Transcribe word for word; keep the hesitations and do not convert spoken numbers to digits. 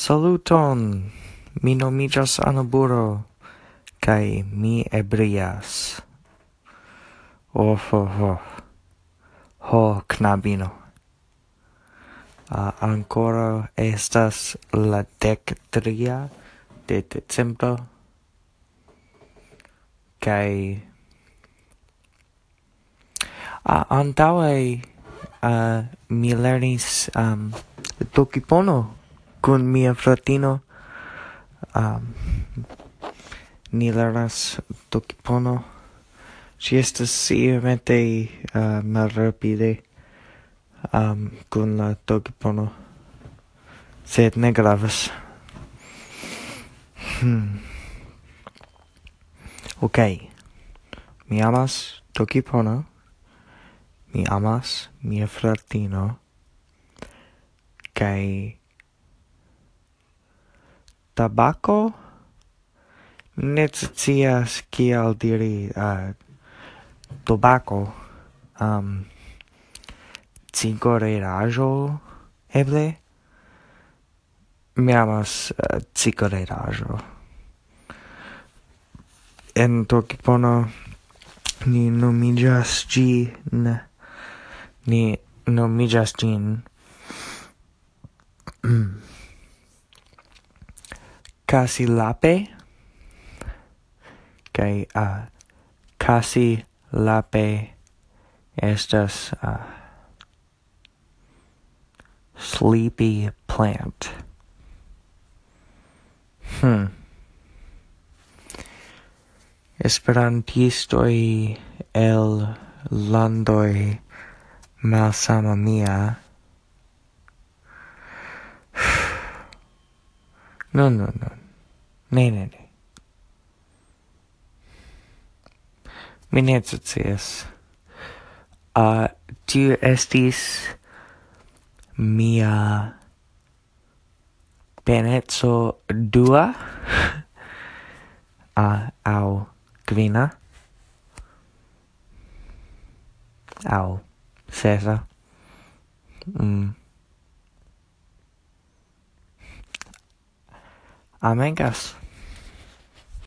Saluton, mi nomiĝas Anaburo, kaj mi ebrias. Oh, oh, oh. Ho, knabino. Uh, ankoraŭ estas la dek tria de decembro. Kaj uh, antaŭe uh, mi lernis um, Tokipono kun mia fratino. Um, ni lernas Tokipono. Ŝi estas iomete uh, malrapide um, kun la Tokipono, sed ne gravas. Hmm. Ok, mi amas Tokipono, mi amas mia fratino, kaj tabako? Ne scias kiel diri uh, tobako. Um, cigareraĵo, eble? Mi amas uh, cigareraĵo. En Tokipono ni nomiĝas ĝin, ni nomiĝas ĝin Kasi lape, kaj uh, kasi lape estas uh, sleepy plant. Hmm. Esperantistoj el landoj malsama mia. No, no, no. Ne, ne, ne. Mi ne scias. Uh, tiu estis mia peneco dua uh, aŭ kvina aŭ sesa. Mm. Amigas,